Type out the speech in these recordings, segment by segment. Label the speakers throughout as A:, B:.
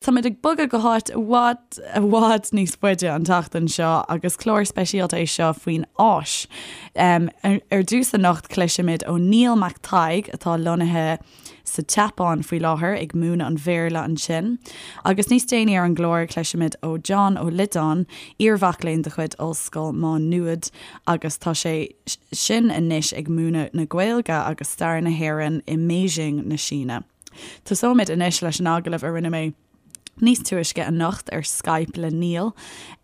A: Táimid ag bogadh go háit i bhfad, i bhfad níos faide an tseachtain seo agus clár speisialta é seo faoin Áis. Ar dtús anocht cloisfimid ó Niall Mac Thaidhg atá lonnaithe sa tSeapáin faoi láthair ag múineadh an Bhéarla ansin. Agus níos déanaí ar an gclár cloisfimid ó John Ó Loideáin, iarmhac léinn de chuid Ollscoil Mhá Nuad agus tá sé sin anois ag múineadh na Gaeilge agus stair na hÉireann i mBeijing na Síne. Tosóimid anois leis an agallamh a rinne mé níos túisce anocht ar Skype le Niall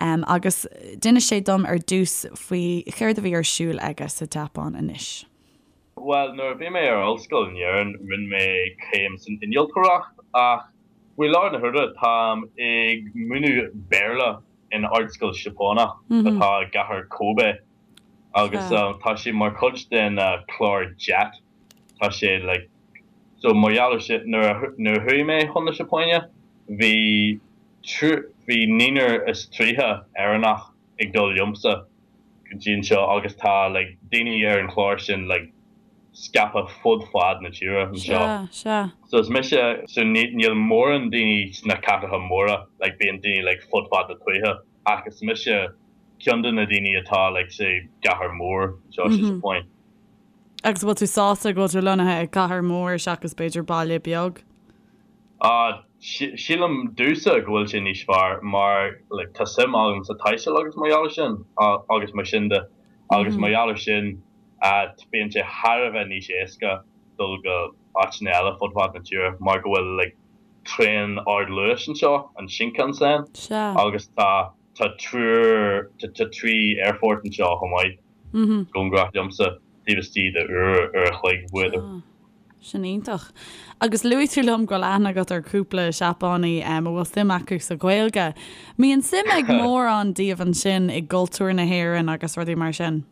A: agus d'inis sé dom ar dtús faoi chéard a bhí ar siúl aige sa tSeapáin anois.
B: Bhuel, nuair a bhí mé ar ollscoil in Éirinn, rinne mé céim san innealtóireacht ach faoi láthair na huaire táim ag múineadh Béarla in ardscoil Seapánach atá i gcathair Kobe agus tá sé mar chuid den chlár JET. Tá sé like so mar gheall ar sin nuair a nuair a chuaigh mé chun na Seapáine bhí bhí naonúr is 30 Éireannach ag dul liomsa go dtí anseo agus tá like daoine ar an chlár sin like scaipthe fud fad na tíre anseo.
A: Sea, sea.
B: So is mise so ní níl mórán daoine sna cathracha móra like bíonn daoine like fud fad na tuaithe ach is mise ceann de na daoine atá like sa gcathair mhór anseo sa Seapáin.
A: Agus an bhfuil tú sásta go bhfuil tú lonnaithe i gcathair mhór seachas b'fhéidir baile beag?
B: Ah, sílim domhsa go bhfuil sé níos fearr mar like tá suim agam sa taisteal agus mar gheall ar sin agus mar sin de agus mar gheall ar sin bíonn sé thar a bheith níos éasca dul go áiteanna eile fud fad na tíre mar go bhfuil like traein ardluais anseo, an Shinkansen, agus tá tá triúr tá trí aerfort anseo chomh maith. Cóngarach liomsa, taobh istigh de uair, uair a chloig, b'fhéidir.
A: Sin iontach. Agus luaigh tú liom go bhfuil aithne agat ar cúpla Seapánaí a bhfuil suim acu sa Ghaeilge. Mbíonn suim ag mórán díobh ansin i gcultúr na hÉireann agus rudaí mar sin?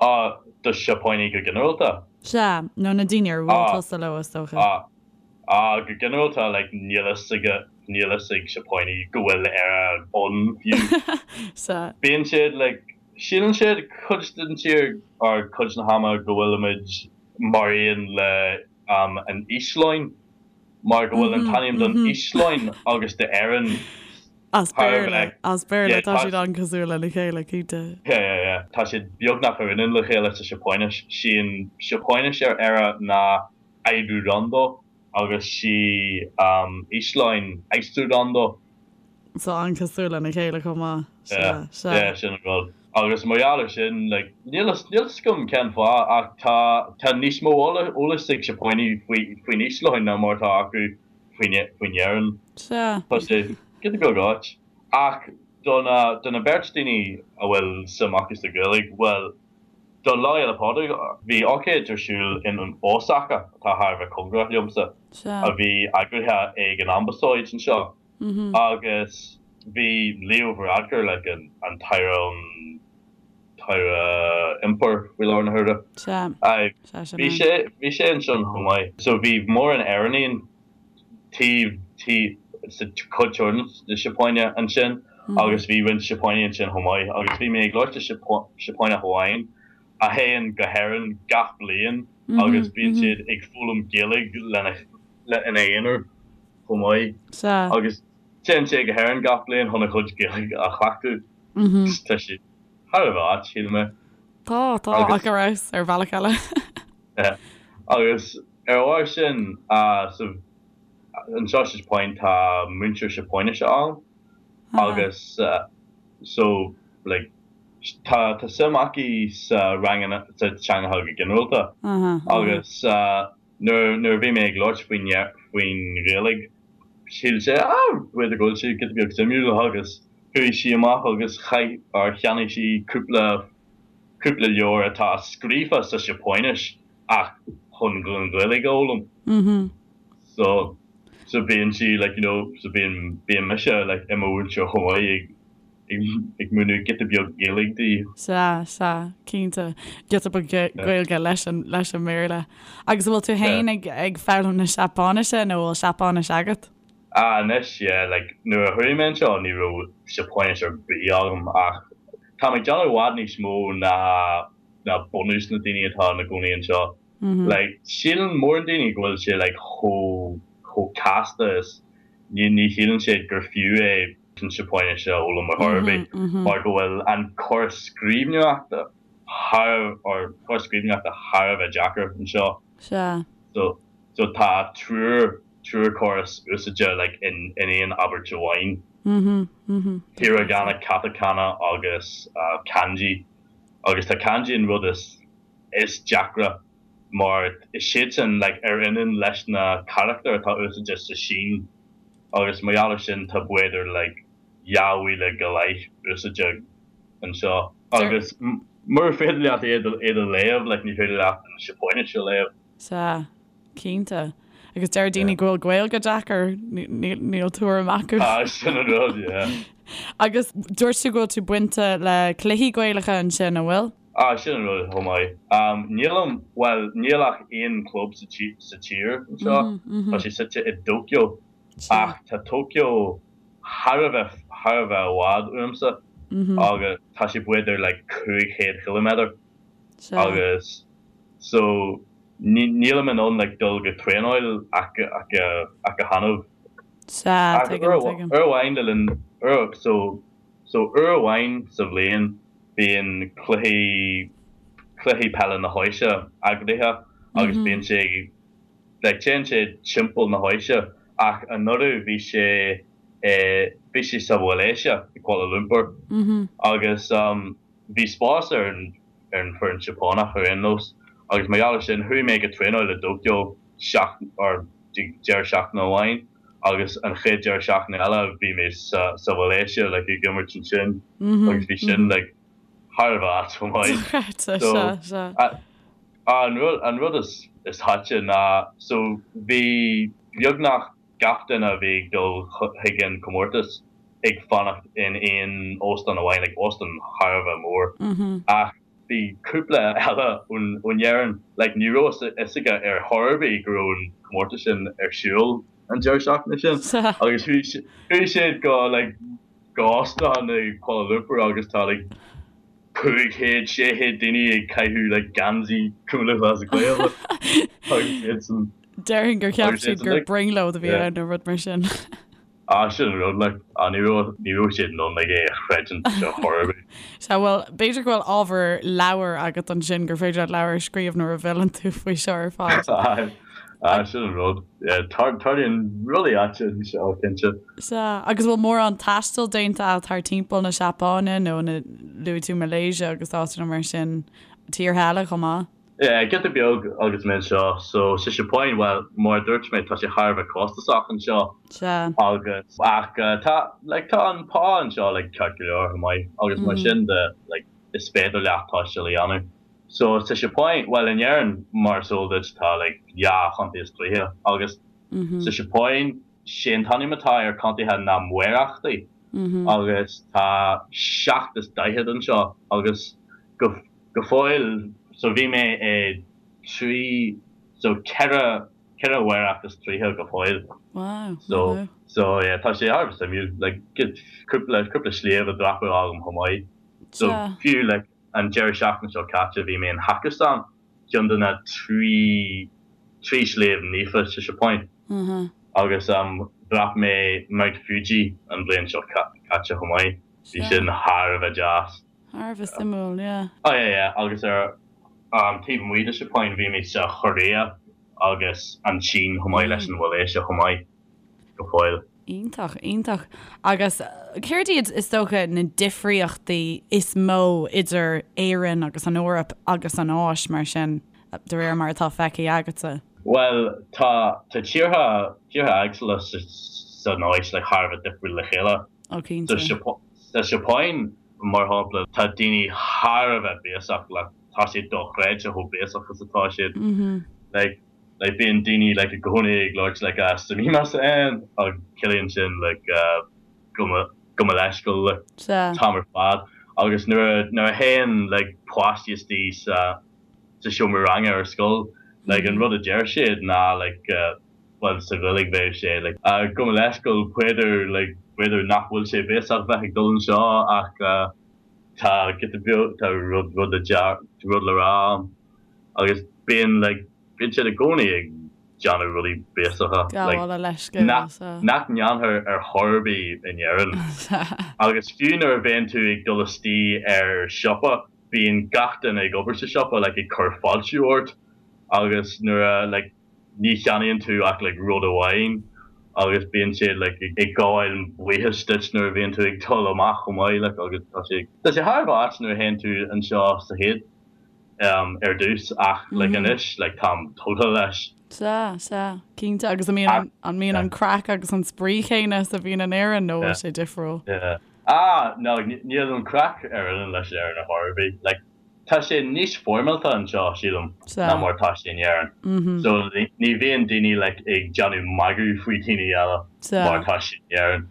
B: Ah, do Seapánaigh go ginearálta?
A: Sea, nó na daoine ar bhuail tusa leo, is dócha.
B: Ah, ah, go ginearálta, like, níl fhios ag, níl fhios ag Seapánaigh go bhfuil Éire ann fiú.
A: Sea.
B: Bíonn siad, like, Síleann siad cuid den tír or cuid na hama go bhfuilimid mar aon le an Íoslainn mar go bhfuil an t-ainm don Íoslainn agus d'Éirinn
A: As Béarla, as Béarla, tá siad an-cosúil lena chéile, cinnte.
B: Yeah, yeah, yeah. Tá siad beagnach ar ionann le chéile sa Seapáinis. Sí an Seapáinis ar Éire ná Áirúrando agus sí Íoslainn Austúrlando.
A: So an-cosúil lena chéile chomh maith.
B: Sea, sea. Yeah, sin an rud. Agus mar gheall ar sin, like, níl fhios, níl fhios agam cén fáth ach tá, tá níos mó eolais ag Seapánaigh faoi, faoin Íoslainn ná mar atá acu faoin, faoin Éirinn.
A: Sea.
B: Tá sé giota beag ait. Ach do na, do na beirt daoine a bhfuil suim acu sa Ghaeilge, bhuel, do Lá Fhéile Pádraig, bhí ócáid ar siúl in Osaka, atá thar a bheith cóngarach liomsa, a bhí eagraithe ag an Ambasáid anseo. Agus bhí Leo Varadkar, like an an tAire an tAire Iompair faoi láthair na huaire.
A: Sea. Sea, sin
B: Bhí
A: é.
B: sé bhí sé ansin chomh maith. So bhí mórán Éireannaigh taobh taobh sa chuid thoir na Seapáine ansin agus bhí roinnt Seapánaigh ansin chomh maith agus bhí mé ag labhairt le Seapánach amháin a théann go hÉirinn gach bliain agus bíonn siad ag foghlaim Gaeilge lena le ina aonar. chomh maith.
A: Sea.
B: Agus téann sé go hÉirinn gach bliain chun a chuid Gaeilge a chleachtadh. Tá sé thar a bheith ait, shíl mé.
A: Tá, tá, ach ar fheabhas ar bhealach eile.
B: Agus ar a bharr sin, so anseo sa Seapáin tá múinteoir Seapáinise ann agus so like tá tá suim aici sa ranganna sa teangacha go ginearálta agus Nuair a bhí mé ag labhairt faoin faoin Ghaeilge, shíl sé, ah, b'fhéidir go bhfuil sé giota beag suimiúil agus chuaigh sí amach agus chaith, or cheannaigh sí cúpla, cúpla leabhar atá scríofa sa Seapáinis ach chun an Ghaeilge a fhoghlaim. So, so bíonn sí like, you know, so bíonn, bíonn mise like i mo mhúinteoir chomh maith ag, ag múineadh giota beag Gaeilge di.
A: Sea, sea, cinnte. Giota beag Gaeilge leis an, leis an mBéarla. Agus an bhfuil tú féin ag, ag foghlaim na Seapáinise nó an bhfuil Seapáinis agat?
B: Ah, anois, yeah, like, nuair a chuaigh mé anseo ní raibh Seapáinis ar bith agam ach tá mé ag déanamh i bhfad níos mó ná, ná bunús na daoine atá ina gcónaí anseo. Like, síleann mórán daoine go bhfuil sé like chomh, chomh casta is. Ní ní shíleann siad gur fiú é an Seapáinis a fhoghlaim ar chor ar bith mar go bhfuil an córas scríbhneoireachta thar or córas scríbhneoireachta thar a bheith deacair anseo.
A: Sea.
B: So so tá triúr triúr córas úsáidte like in in aon abairt amháin. Hiragana, katakana agus kanji. Agus tá kanji an rud is is deacra mar is siadsan like ar ionann leis na carachtair atá úsáidte sa Sín agus mar gheall ar sin tá b'fhéidir like 2,000 go leith úsáidte anseo agus mura féidir leat iad iad a léamh like ní féidir leat an Seapáinis a léamh.
A: Sea, cinnte. Agus deir daoine go bhfuil Gaeilge deacair, níl tuairim acu.
B: Ah, sin an rud, yeah.
A: Agus dúirt tú go bhfuil tú bainte le cluichí Gaelacha ansin, an bhfuil?
B: Ah, sin an rud chomh maith. Nílim, bhuel, níl ach aon club sa tír anseo, tá sé suite i dTóiceo, ach tá Tóiceo thar a bheith, thar a bheith i bhfad uaimse agus tá sé b'fhéidir like 500 chiliméadar agus so nílim in ann like dul go traenáil ach ach ach go hannamh.
A: Sea, tuigim, tuigim.
B: Uair amháin le linn, so so uair amháin sa bhliain bíonn cluichí cluichí peile na hÁise eagraithe agus bíonn sé like téann sé timpeall na hÁise ach anuraidh bhí sé i bhí sé sa Mhalaeisia i Kuala Lumpur agus bhí spás ar an ar an foireann Seapánach ar aon nós agus mar gheall ar sin chuaigh mé go traenáil i dTóiceo seacht or deireadh seachtaine amháin agus an chéad deireadh seachtaine eile bhí mé sa sa Mhalaeisia like ag imirt ansin agus bhí sin like thar a bheith ait chomh maith.
A: Dochreidte,
B: So
A: sea, sea.
B: an rud an rud is is aite ná so bhí beagnach gach duine a bhí ag dul chuig an comórtas ag fanacht in aon óstán amháin like óstán thar a bheith mór ach bhí cúpla eile ón Éirinn like ní raibh a fhios aige ar chor ar bith go raibh an comórtas sin ar siúl an deireadh seachtaine sin agus chuaigh siad go like go óstán i Kuala Lumpur agus tá like 500, 600 daoine ag caitheamh like geansaí Cumann Lúthchleas Gael agus
A: iad san Déarfainn gur cheap siad gur brionglóid a bhí ann nó rud mar sin.
B: Ah, sin an rud, like, ah, ní raibh, ní raibh siad in ann, like, é a chreidiúint ar chor ar bith.
A: Sea, bhuel, b'fhéidir go bhfuil ábhar leabhair agat ansin, gur féidir leat leabhar a scríobh nuair a bhfilleann tú faoi seo ar
B: fad. Aye, aye, sin an rud. Yeah, tar, tarlaíonn rudaí aite anseo, cinnte.
A: Sea, agus bhfuil mórán taistil déanta agat thar timpeall na Seapáine nó na, luaigh tú Malaysia agus áiteanna mar sin, tíortha eile chomh maith?
B: Yeah, giota beag agus mé anseo. So, sa Seapáin, bhuel, mar a dúirt mé, tá sé thar a bheith costasach anseo.
A: Sea.
B: Agus, ach tá, like, tá an pá anseo, like, ceart go leor, chomh maith. Agus mar sin de, like, is féidir leat taisteal a dhéanamh. So, sa Seapáin, bhuel, in Éirinn, mar is eol duit, tá, like, dhá chontae is tríocha. Agus sa Seapáin, sé an t-ainm atá ar contaetha ná maorachtaí. Agus tá 47 anseo. Agus go. Go fóill, so bhí mé i trí, so ceithre, ceithre mhaoracht is tríocha go fóill.
A: Wow,
B: So, wow. so yeah, tá sé thar a bheith suimiúil, like cúpla, cúpla sliabh a dhreapadh agam chomh maith. So
A: Sea.
B: fiú like an deireadh seachtaine seo caite bhí mé in Hakusan, ceann de na trí, trí sliabh naofa sa Seapáin.
A: Uh-huh.
B: Agus um dhreap mé Mount Fuji an bhliain seo caite chomh maith. Bhí
A: Sea.
B: sin thar a bheith deas.
A: Thar a bheith suimiúil, yeah.
B: Oh yeah yeah agus ar an taobh amuigh de Seapáin bhí mé sa Chóiréa agus an tSín chomh maith leis an Mhalaeisia chomh maith go fóill.
A: Iontach, iontach. Agus céard iad is dócha na difríochtaí is mó idir Éirinn agus an Eoraip agus an Áis mar sin, de réir mar atá feicthe agatsa?
B: Bhuel, tá tá tíortha tíortha éagsúla sa san Áis like thar a bheith difriúil le chéile.
A: Oh cinnte.
B: Sa Seapáin, mar shampla, tá daoine thar a bheith béasach, like tá sé dochreidte chomh béasach is atá siad. Like, like bíonn daoine like i gcónaí ag labhairt like ah sumimasen agus ciallaíonn sin like gabh mo gabh mo leithscéal like
A: Sea.
B: an t-am ar fad. Agus nuair a nuair a théann like páistí istigh sa sa seomra ranga ar scoil, like an rud a deir siad ná like bhuel sa Ghaeilge bheadh sé like gabh mo leithscéal b'fhéidir like b'fhéidir nach bhfuil sé béasach bheith ag dul anseo ach tá giota beag tá rud rud le rud le rá agus bíonn like bíonn siad i gcónaí ag. déanamh rudaí béasacha like
A: Gabháil a leithscéal,
B: nach
A: sea.
B: nach ndéanfar ar chor ar bith in Éirinn.
A: Sea.
B: Agus fiú nuair a bhíonn tú ag dul istigh ar siopa bíonn gach duine ag obair sa siopa like ag cur fáiltiú ort agus nuair a like ní cheannaíonn tú ach like rud amháin agus bíonn siad like ag gabháil buíochas duit nuair a bhíonn tú ag dul amach chomh maith like agus tá sé tá sé thar a bheith ait nuair a théann tú anseo sa chéad um ar dtús ach like anois like táim tógtha leis.
A: Sea, sea, cinnte agus an mbíonn an mbíonn an craic agus an spraoi chéanna is a bhíonn in Éirinn nó bhfuil sé difriúil?
B: Yeah. Ah no níl an craic ar ionann leis Éirinn ar chor ar bith like Tá sé níos foirmeálta anseo, sílim, ná mar atá sé in Éirinn. So ní bhíonn daoine like ag déanamh magadh faoi dhaoine eile mar atá sé in Éirinn.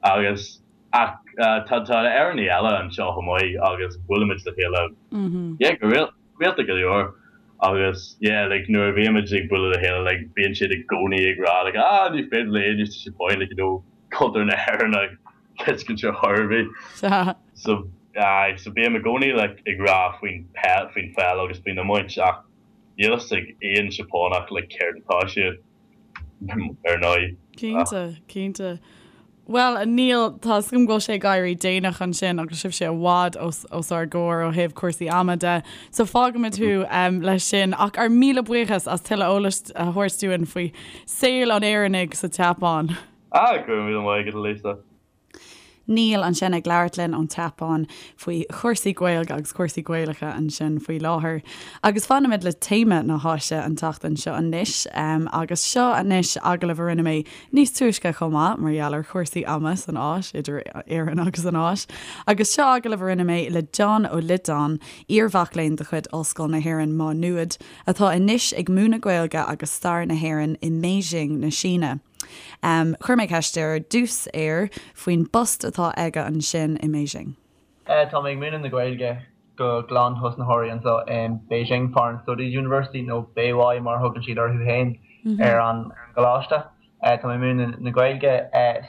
B: Agus ach tá tá Éireannaigh eile anseo chomh maith agus buailimid le chéile yeah go rialta go leor. Agus yeah like nuair a bhímid ag bualadh le chéile like bíonn siad i gcónaí ag rá like ah ní féidir le éinne sa Seapáin like you know cultúr na hÉireann a thuiscint ar chor ar bith. So aye, so bím i gcónaí like ag rá faoin peil, faoin pheil agus faoin iomáint ach níl fhios ag aon Seapánach like céard atá siad ar ndóigh.
A: Cinnte, cinnte. Bhuel, a Neil, tá 'fhios agam go bhfuil sé ag éirí déanach ansin agus sibhse i bhfad os, os ár gcomhair ó thaobh cúrsaí ama de, so fágfaimid thú leis sin. Ach ár míle buíochas as tuilleadh eolais a thabhairt dúinn faoi saol an Éireannaigh sa tSeapáin.
B: Ah, go raibh míle maith agat, a Lisa.
A: Neil ansin ag labhairt linn ón tSeapáin faoi chúrsaí Gaeilge agus cúrsaí Gaelacha ansin faoi láthair. Agus fanfaimid le téama na hÁise an tseachtain seo anois. Agus seo anois agallamh a rinne mé níos túisce chomh maith mar gheall ar chúrsaí ama san Áis, idir Éirinn agus an Áis. Agus seo agallamh a rinne mé le John Ó Loideáin, iar-mhac léinn de chuid Ollscoil na hÉireann Má Nuad, atá anois ag múineadh Gaeilge agus stair na hÉireann i mBeijing na Síne. Chuir mé ceist ar dtús air faoin bpost atá aige ansin i mBeijing.
C: Tá mé ag múineadh na Gaeilge do ghlanthosnaitheoirí anseo in Beijing Foreign Studies University, nó Beiwai mar a thugann siad orthu féin ar an gcoláiste. Tá mé ag múineadh na Gaeilge,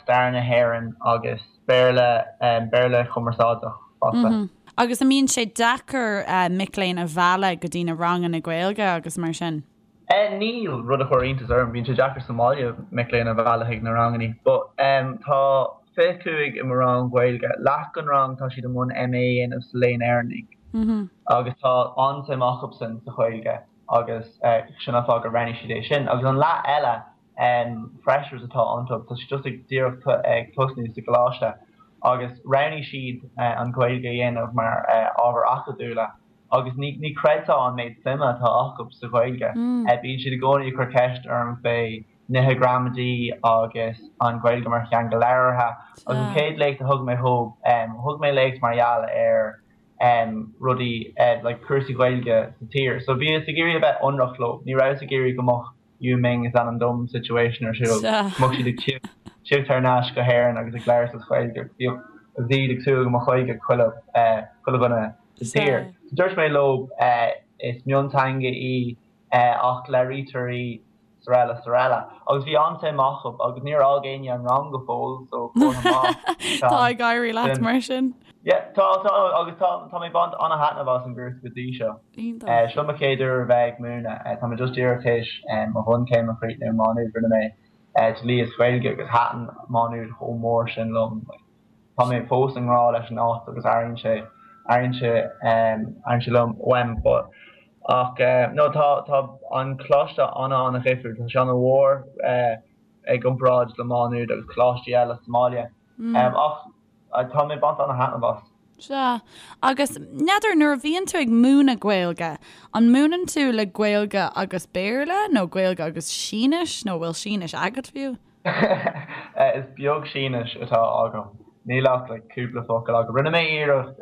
C: stair na hÉireann agus Béarla, Béarla chumarsáideach fosta.
A: Agus an mbíonn sé deacair mic léinn a mhealladh go dtí na ranganna Gaeilge agus mar sin?
C: Níl, rud a chuir iontas orm. Bíonn sé deacair sa mbaile mic léinn a mhealladh chuig na rangannaí. But tá 25 i mo rang Gaeilge. Leath den rang tá siad i mbun MA a dhéanamh sa Léann Éireannach. Agus tá an-suim acusan sa Ghaeilge agus sin an fáth gur roghnaigh siad é sin. Agus an leath eile, freshers atá iontu, tá siad just ag díreach ag tosnú sa gcoláiste agus roghnaigh siad an Ghaeilge a dhéanamh mar ábhar acadúla. Agus ní ní chreidfeá an méid suime atá acu sa Ghaeilge. Bíonn siad i gcónaí ag cur ceist orm fé nithe gramadaí agus an Ghaeilge mar theanga labhartha. Agus an chéad léacht a thug mé dhób, thug mé léacht mar gheall ar rudaí like cúrsaí Gaeilge sa tír. So bhíos ag iarraidh a bheith ionraic leo. Ní rabhas ag iarraidh go mbeadh Yu Ming is ainm dom situation ar siúl. Go mbeadh siad ag tíocht thar n-ais go hÉirinn agus ag labhairt as Gaeilge. Bhíodh agus iad ag súil go mbeadh Gaeilge ag chuile chuile dhuine sa tír. So dúirt mé leo is mionteanga í ach labhraítear í 's araile 's araile. Agus bhí an-suim acu agus níor fhág éinne an rang go fóill so comhartha
A: maith. Tá ag éirí leat mar sin.
C: Yeah, tá, tá, agus tá, tá mé ag baint an-thaitneamh as an gcúrsa go dtí seo.
A: Iontach.
C: Seo mo chéad uair a bheith ag múineadh. Tá mé just díreach théis mo bhunchéim a chríochnú i Má Nuad. Rinne mé Dlí is Gaeilge agus thaitin Má Nuad chomh mór sin liom. Tá mé fós i ngrá leis an áit agus airíonn sé, airíonn sé, airíonn sé liom uaim. But, ach no, tá, tá an coláiste an-an-dhifriúil. Tá sé an-mhór i gcomparáid le Má Nuad agus coláistí eile sa mbaile. Ach tá mé ag baint an-thaitneamh as.
A: Sea. Agus, n'fheadar, nuair a bhíonn tú ag múineadh Gaeilge, an múineann tú le Gaeilge agus Béarla nó Gaeilge agus Sínis nó bhfuil Sínis agat fiú?
C: Is beag Sínis atá agam. Níl ach like cúpla focal agam. Rinne mé iarracht,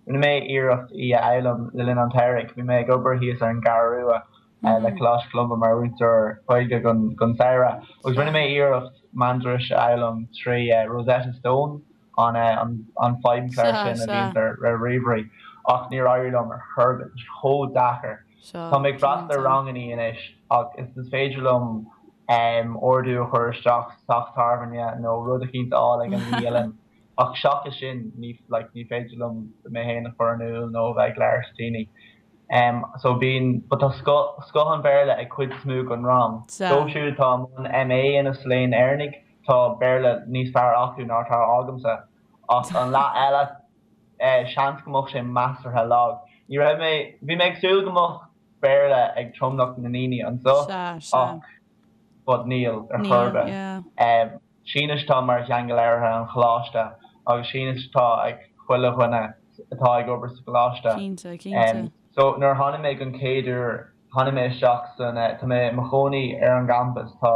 C: rinne mé iarracht í a fhoghlaim le linn an tsamhraidh. Bhí mé ag obair thíos ar an gCeathrú Rua le Coláiste Cholumba mar mhúinteoir Gaeilge don samhradh agus rinne mé iarracht Mandairis a fhoghlaim trí Rosetta Stone, an feidhmchlár sin a bhíonns ar ríomhairí, ach níor éirigh liom ar chor ar bith, tá sé chomh deacair. Tá mé ag freastal ar rangannaí anois ach is féidir liom ordú a chur isteach sa teach tábhairne nó rud eicínt a fháil ag an mbialann ach seachas sin ní like ní féidir liom mé féin a chur in iúl nó a bheith ag labhairt le daoine. So bíonn, but tá scoth, scoth an Bhéarla ag cuid is mó den rang. Dóibh siúd atá i mbun MA a dhéanamh sa Léann Éireannaigh, tá Béarla níos fearr acu ná atá agamsa. Ach an leath eile, seans go mbeadh sé measartha lag. Ní raibh mé, bhí mé ag súil go mbeadh Béarla ag tromlach na ndaoine anseo ach, but níl ar chor ar bith. Sínis atá mar theanga labhartha an choláiste agus Sínis atá ag chuile dhuine atá ag obair sa gcoláiste.
A: Cinnte, cinnte.
C: So nuair a tháinig mé don chéad uair, tháinig mé isteach san, tá mé i mo chónaí ar an gcampas, tá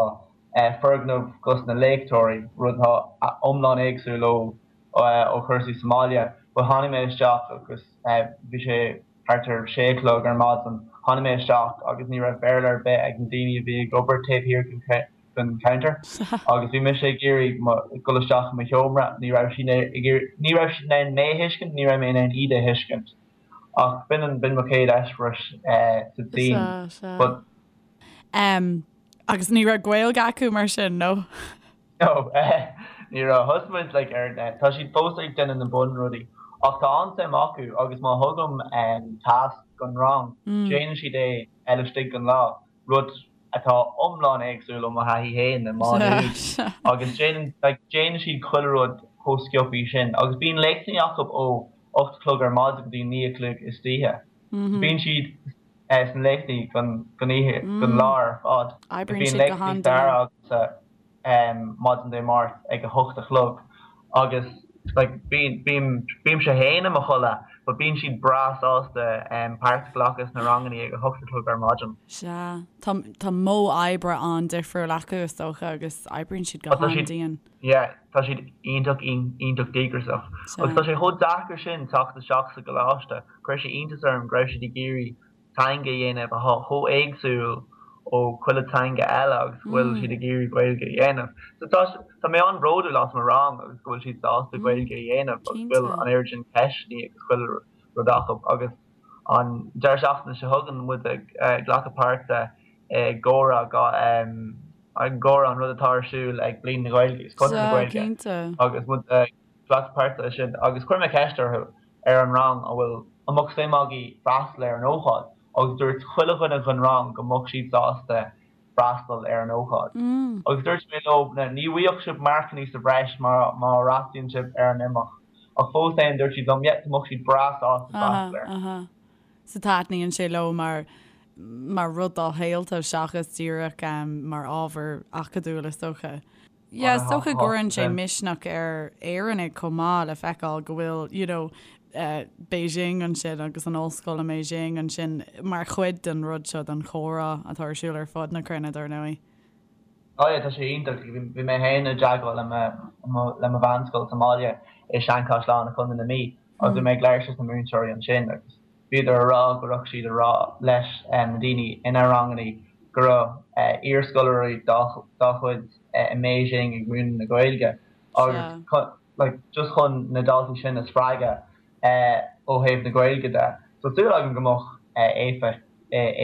C: foirgneamh dos na léachtóirí, rud atá iomlán éagsúil ó ó chúrsaí sa mbaile, but tháinig mé isteach agus bhí sé thart ar sé a chlog ar maidin, tháinig mé isteach agus ní raibh Béarla ar bith ag na daoine a bhí ag obair taobh thiar den counter agus bhí mise ag iarraidh dul isteach i mo sheomra, ní raibh siad ag iarraidh, ní raibh siad in ann mé a thuiscint, ní raibh mé in ann iad a thuiscint ach b'in an, b'in mo chéad eispéireas sa tSín. But.
A: Agus ní raibh Gaeilge acu mar sin,
C: nó? No, ní raibh. Thosaigh muid like ar, tá siad fós ag déanamh na bunrudaí ach tá an-suim acu agus má thugaim tasc don rang, déanann siad é laistigh den lá, rud atá iomlán éagsúil ó mo thaithí féin i Má Nuad agus déanann like déanann siad chuile rud chomh sciobthaí sin agus bíonn léachtanna acu ó 8 a chlog ar maidin go dtí 9 a chlog istoíche. Bíonn siad sna léachtaí don oíche, don lá ar fad.
A: Oibríonn siad go han-dian.
C: Agamsa maidin Dé Máirt ag a hocht a chlog agus like bím, bímse féin i mo chodladh but bíonn siad breá sásta páirt a ghlacadh sna rangannaí ag a hocht a chlog ar maidin.
A: Sea, tá, tá modh oibre an-difriúil acu is dócha agus oibríonn siad go han-dian.
C: Yeah, tá siad iontach, iontach díograiseach. Agus tá sé chomh deacair sin teacht isteach sa gcoláiste. Chuir sé iontas orm go raibh siad ag iarraidh teanga a dhéanamh atá chomh éagsúil ó chuile teanga eile agus go bhfuil siad ag iarraidh Gaeilge a dhéanamh. So tá, tá mé an-bhródúil as mo rang agus go bhfuil siad sásta Gaeilge a dhéanamh agus go bhfuil an oiread sin ceisteanna agus chuile rud acu agus an deireadh seachtaine seo chugainn muid ag glacadh páirte i gcomhrá i gcomhrá an rud atá ar siúl ag Bliain na Gaeilge agus Conradh na Gaeilge agus muid ag glacadh páirte leis sin agus chuir mé ceist orthu ar an rang an bhfuil an mbeadh suim agaibh freastal ar an ócáid agus dúirt chuile dhuine den rang go mbeadh siad sásta freastal ar an ócáid agus dúirt mé leo ní bhfaighidh sibh marcanna sa bhreis má má fhreastalaíonn sibh ar an imeacht ach fós féin dúirt siad liom yeah go mbeadh siad breá sásta freastal
A: air. So taitníonn sé leo mar mar rud dá shaolta seachas díreach mar ábhar acadúil is dócha. Yeah, is dócha go gcuireann sé misneach ar Éireannaigh chomh maith le feiceáil go bhfuil you know Beijing ansin agus an ollscoil i mBeijing ansin mar chuid den rud seo den chomhrá atá ar siúl ar fud na cruinne dar ndóigh.
C: Oh yeah, tá sé iontach. Bhí mé féin i dteagmháil le mo le mo mheánscoil sa mbaile i Seanchaisleán i Contae na Mí agus bhí mé ag labhairt leis na múinteoirí ansin agus bhíodar a rá go raibh siad a rá leis na daoine ina rangannaí go raibh iarscoláirí dá gcuid i mBeijing ag múineadh na Gaeilge agus like just chun na daltaí sin a spreagadh ó thaobh na Gaeilge de. So súil agam go mbeadh éifeacht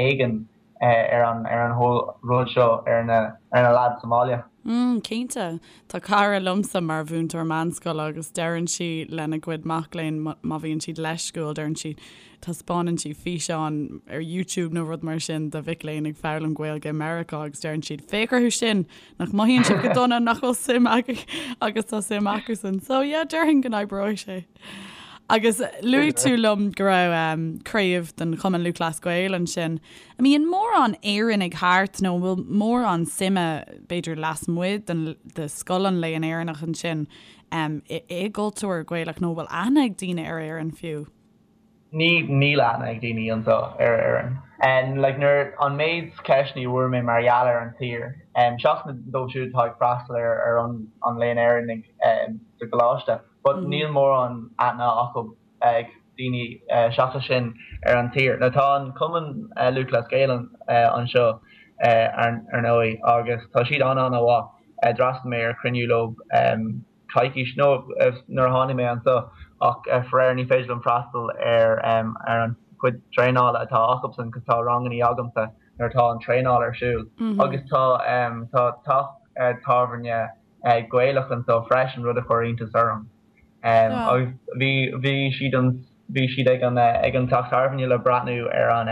C: éigin ar an ar an whole rud seo ar na ar na lads sa mbaile.
A: Mm, cinnte. Tá cara liomsa mar mhúinteoir meánscoile agus deireann sí lena gcuid mac léinn má bhíonn siad leisciúil, deireann sí, taispeánann sí físeán ar YouTube nó rud mar sin de mhic léinn ag foghlaim Gaeilge i Meiriceá agus deireann siad, féach orthu sin, nach mothaíonn siad go dona, nach bhfuil suim acu agus tá suim acusan. So yeah, déarfainn go n-oibreoidh sé. Agus luaigh tú liom go raibh craobh den Chumann Lúthchleas Gael ansin. An mbíonn mórán Éireannaigh thart nó an bhfuil mórán suime, b'fhéidir lasmuigh den de Scoil an Léann Éireannach ansin i gcultúr Gaelach nó an bhfuil aithne ag daoine ar Éirinn fiú?
C: Ní, níl aithne ag daoine anseo ar Éirinn. Like nuair, an méid ceisteanna a bhfuair mé mar gheall ar an tír, seachas na dóibh siúd atá ag freastal ar ar an an Léann Éireannaigh sa gcoláiste, but níl mórán aithne acu ag daoine seachas sin ar an tír. Now tá an Cumann Lúthchleas Gael anseo ar ndóigh agus tá siad an-an-mhaith. D'fhreastail mé ar chruinniú leo coicís nó nuair a tháinig mé anseo ach faraor ní féidir liom freastal ar ar an chuid traenála atá acusan cos tá rangannaí agamsa nuair atá an traenáil ar siúl agus tá tá teach tábhairne Gaelach anseo freisin, rud a chuir iontas orm. Agus bhí, bhí siad an. Bhí siad ag an ag an teach tábhairne le breathnú ar an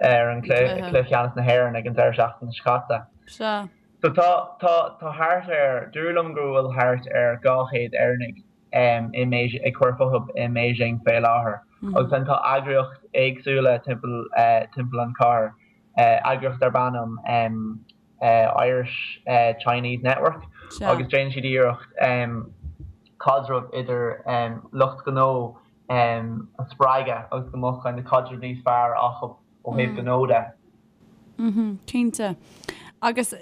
C: ar an cluiche ceannais na hÉireann ag an deireadh seachtaine seo caite.
A: Sea.
C: So tá tá tá thart ar, dúradh liom go bhfuil thart ar 200 Éireannaigh i mBeijing ag cur fúthu i mBeijing fé láthair. Agus then tá eagraíocht éagsúla timpeall timpeall an chathair, eagraíocht darb ainm Irish Chinese Network agus déanann siad iarracht caidreamh idir lucht gnó a spreagadh agus go mbeadh kind of caidreamh níos fearr acu ó thaobh gnó de.
A: Cinnte. Agus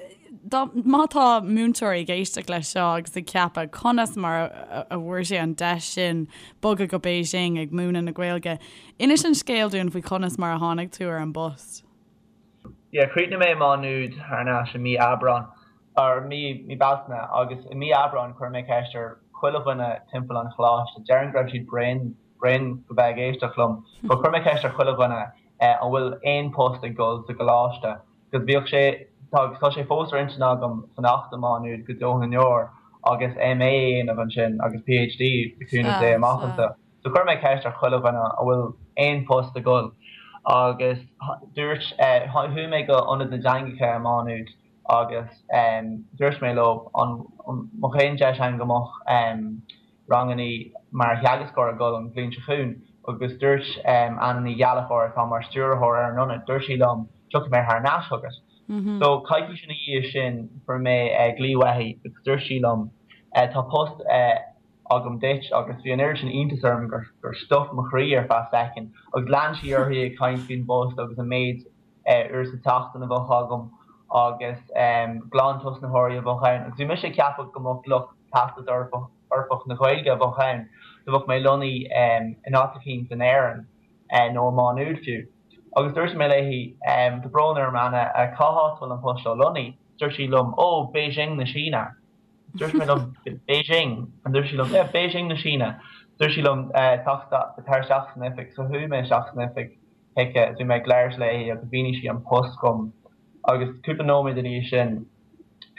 A: dá, má tá múinteoirí ag éisteacht leis seo agus ag ceapadh conas mar a bhfuair sé an deis sin bogadh go Beijing ag múineadh na Gaeilge, inis an scéal dúinn faoi conas mar a tháinig tú ar an bpost.
C: Yeah, chríochnaigh mé i Má Nuad thar n-ais i mí Aibreán, or mí, mí Bealtaine, agus i mí Aibreán chuir mé ceist ar chuile dhuine timpeall an choláiste, déarfainn go raibh siad bréan, bréan go bheith ag éisteacht liom, but chuir mé ceist ar chuile dhuine eh an bhfuil aon post ag dul sa gcoláiste, cos bhíodh sé, tá, tá sé fós ar intinn agam fanacht i Má Nuad go deo na ndeor agus MA a dhéanamh ansin agus PhD le cúnamh Dé amach anseo. So chuir mé ceist ar chuile dhuine an bhfuil aon post ag dul agus dúirt, chuaigh mé go Ionad na dTeangacha i Má Nuad agus dúirt mé leo an mbeadh aon deis ann go mbeadh rangannaí mar theagascóir ag dul an bhliain seo chugainn agus dúirt Anna Ní Ghallchóir atá mar stiúrthóir ar an ionad, dúirt sí liom tiocfaidh mé thar n-ais chugat. So coicís ina dhiaidh sin fuair mé glaoch uaithi agus dúirt sí liom tá post agam duit agus bhí an oiread sin iontas orm gur stop mo chroí ar feadh soicind agus lean sí uirthi ag caint faoin bpost agus an méid uair sa tseachtain a bheadh agam agus glantosnaitheoirí a bheadh ann agus bhí mise ag ceapadh go mbeadh lucht Teastas Eorpach na Gaeilge a bheadh ann so bheadh mé lonnaithe in áit eicínt in Éirinn nó i Má Nuad fiú. Agus dúirt mé léi, tá brón orm Anna, cá háit a bhfuil an post seo lonnaithe? Dúirt sí liom, ó, Beijing na Síne. Dúirt mé liom, Beijing? And dúirt sí liom, yeah, Beijing na Síne. Dúirt sí liom, teacht, tar isteach san oifig. So chuaigh mé isteach san oifig chuici, bhí mé ag labhairt léi agus mhínigh sí an post dhom. Agus cúpla nóiméad ina dhiaidh sin,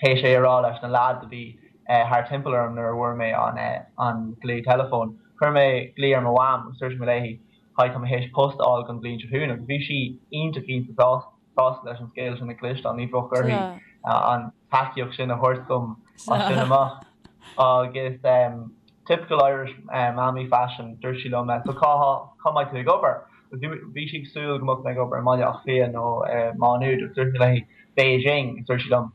C: théis é a rá leis na lads a bhí thar timpeall orm nuair a bhfuair mé an, an glao teileafóin, chuir mé glao ar mo mham agus dúirt mé léi, hi, tá mé théis post a fháil don bhliain seo chugainn agus bhí sí iontach iontach sásta. sásta leis an scéal sin a chloisteáil, ní bheadh uirthi an tacaíocht sin a thabhairt dom as sin amach. Agus typical Irish mammy fashion, dúirt sí liom, so cá cá mbeidh tú ag obair? Bhí sí ag súil go mbeadh mé ag obair i mBaile Átha Cliath nó i Má Nuad agus dúirt mé léi Beijing agus dúirt sí liom,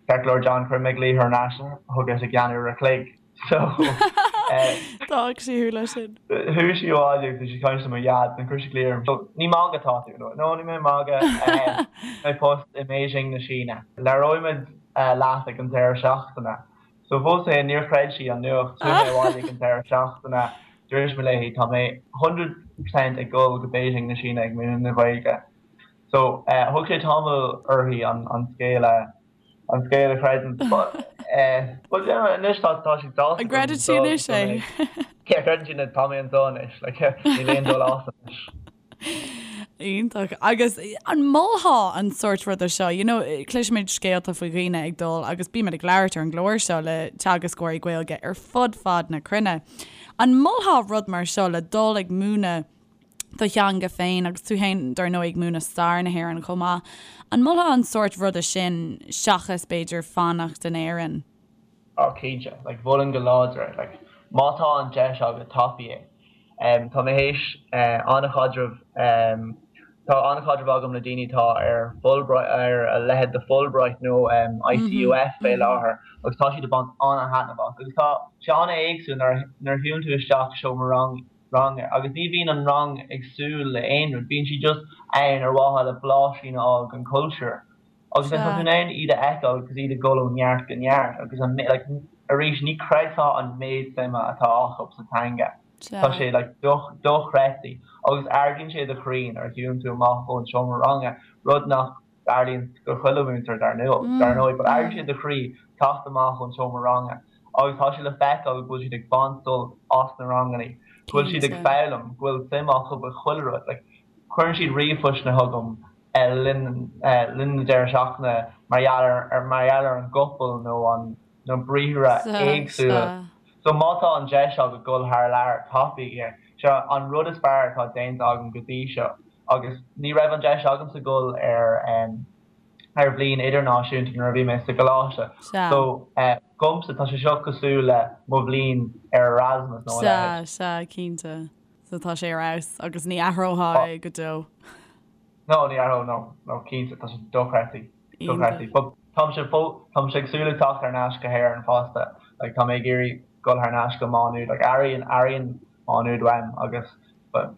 C: Ceart go leor John, cuirfidh mé glaoch thar n-ais chugat i gceann uair a chloig. So
A: D'fhág sí thú leis sin.
C: Chuaigh sí abhaile agus bhí sí ag caint le mo dhaid and chuir sí glaoch orm. So ní magadh atá tú? No, no ní mé ag magadh. Mé post i mBeijing na Síne. Labhróidh muid leat ag an deireadh seachtaine. So fós féin níor chreid sí an nuacht. Chuaigh mé abhaile ag an deireadh seachtaine. Dúirt mé léi tá mé 100% ag dul go Beijing na Síne ag múineadh na Gaeilge. So thug sé tamall uirthi an scéal a an scéal a chreidiúint. But eh, but yeah, anois tá tá sí sásta.
A: An gcreideann sí anois
C: é? Yeah, creideann sí tá mé anseo anois, like, níl aon dul as anois.
A: Iontach. Agus an molfá an sórt ruda seo, you know, cloisimid scéalta faoi dhaoine ag dul agus bímid ag labhairt ar an gclár seo le teagascóirí Gaeilge ar fud fad na cruinne. An molfá rud mar seo le dul ag múineadh do theanga féin agus tú féin dar ndóigh ag múineadh stair na hÉireann chomh maith. An molfá an sórt ruda sin seachas b'fhéidir fanacht in Éirinn?
C: Oh cinnte, like mholfainn go láidir é, like má tá an deis agat tapaigh é. Um, tá mé théis uh, an-chaidreamh um, tá an-chaidreamh agam le daoine atá ar Fulbright ar a leithéid de Fulbright nó um, ICUF fé láthair agus tá siad ag baint an-thaitneamh as agus tá sé an-éagsúil nuair nuair a shiúlann tú isteach seomra rang ranga agus ní bhíonn an rang ag súil le aon rud, bíonn siad just ann ar mhaithe le blaisín a fháil den chultúr. Agus then tá tú in ann iad a fheiceáil agus iad ag dul ó neart go neart agus an like arís ní chreidfeá an méid suime atá acu sa teanga. Tá sé like dochreidte agus ardaíonn sé do chroí nuair a shiúlann tú amach ón seomra ranga, rud nach dtarlaíonn do chuile mhúinteoir dar ndóigh, but ardaíonn sé do chroí teacht amach ón seomra ranga agus tá sé le feiceáil go bhfuil siad ag baint sult as na ranganna, go bhfuil siad ag foghlaim, go bhfuil suim acu i chuile rud. Like, cuireann siad ríomhphostanna chugam le linn linn na deireadh seachtaine mar gheall ar mar gheall ar an gcopail nó an na briathra éagsúla. So má tá an deis agat dul thar lear, tapaigh é. Seo an rud is fearr atá déanta agam go dtí seo agus ní raibh an deis agamsa dul ar ar bhliain idirnáisiúnta nuair a bhí mé sa gcoláiste. So dhomsa tá sé seo cosúil le mo bhliain ar Erasmus
A: nó a leithéid. Sea, sea, cinnte. So tá sé ar fheabhas agus ní athrófá é go deo.
C: No, ní athróinn, no, no, cinnte, tá sé dochreidte, dochreidte. But táimse fó, táimse ag súil le teacht thar n-ais go hÉirinn fosta, like tá mé ag iarraidh dul thar n-ais go Má Nuad, like airíonn, airíonn Má Nuad uaim agus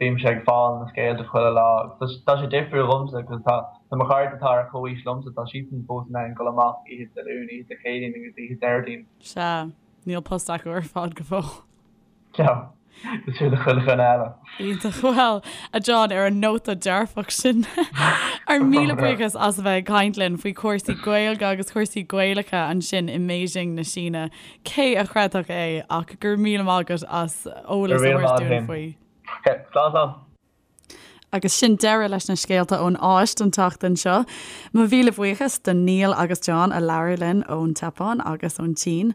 C: bímse ag fáil na scéalta chuile lá agus tá sé difriúil dhomsa cos tá, tá mo chairde atá ar chomhaois liomsa, tá siadsan fós in ann dul amach oíche Dé Luain, oíche Dé Céadaoin agus oíche Déardaoin.
A: Sea, níl post acu ar fad go fóill.
C: No, cosúil le chuile dhuine eile.
A: Iontach. Bhuel, a John, ar an nóta dearfach sin, ár míle buíochas as a bheith ag caint linn faoi chúrsaí Gaeilge agus cúrsaí Gaelacha ansin i mBeijing na Síne. Cé a chreidfeadh é ach go raibh míle maith agat as eolas a thabhairt dúinn faoi.
C: Slán, slán.
A: Agus sin deireadh leis na scéalta ón Áis don tseachtain seo. Mo mhíle buíochas do Niall agus John a labhair linn ón tSeapáin agus ón tSín.